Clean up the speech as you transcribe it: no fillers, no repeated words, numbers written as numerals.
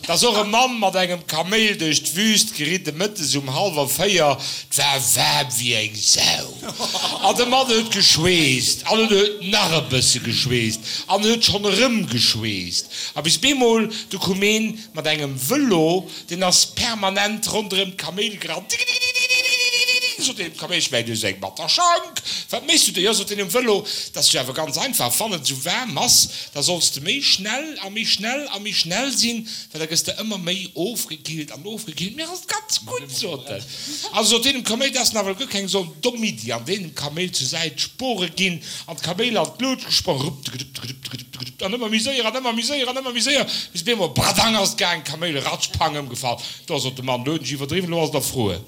Et ass och e Mann mat engem Kaméil duerch d'Wüst geridde mëttes um hallwer 4. 't war waarm wéi eng Sau. An de Mann huet geschweesst an en huet nach e bësse geschweesst an en huet schonn erëm geschweesst. A bis bemol, du koum een mat engem Vëlo, deen ass permanent ronderëm d'Kaméil gerannt. Tikitikitikitikitikitikitikitikitikitik, sot deen Kaméil, ech mengen, du hues eng batter Schank. Wat méchs du do? Jo, sot deen um Vëlo, 't ass jo awer ganz einfach, wann et esou waarm ass, Da solls de méi schnell a méi schnell a méi schnell sinn, well da gëss de ëmmer méi ofgekillt an ofgekillt. Mir ass et ganz gutt, sot en. Also sot deen dem Kaméil, dat ass nawell guer keng esou domm Iddi. An deen dem Kaméil zur Säit d'Spore ginn an d'Kaméil an d'Luut gesprong, rupp-de-gedupp-de-gedupp-de-gedupp-de-gedupp, an ëmmer méi séier an ëmmer méi séier an ëmmer méi séier, bis op eemol, bradang ass et gaang, d'Kaméil ratsch, pang, ëmgefall. Do sot de Mann, lo hunn ech iwwerdriwwen, lo ass et erfruer.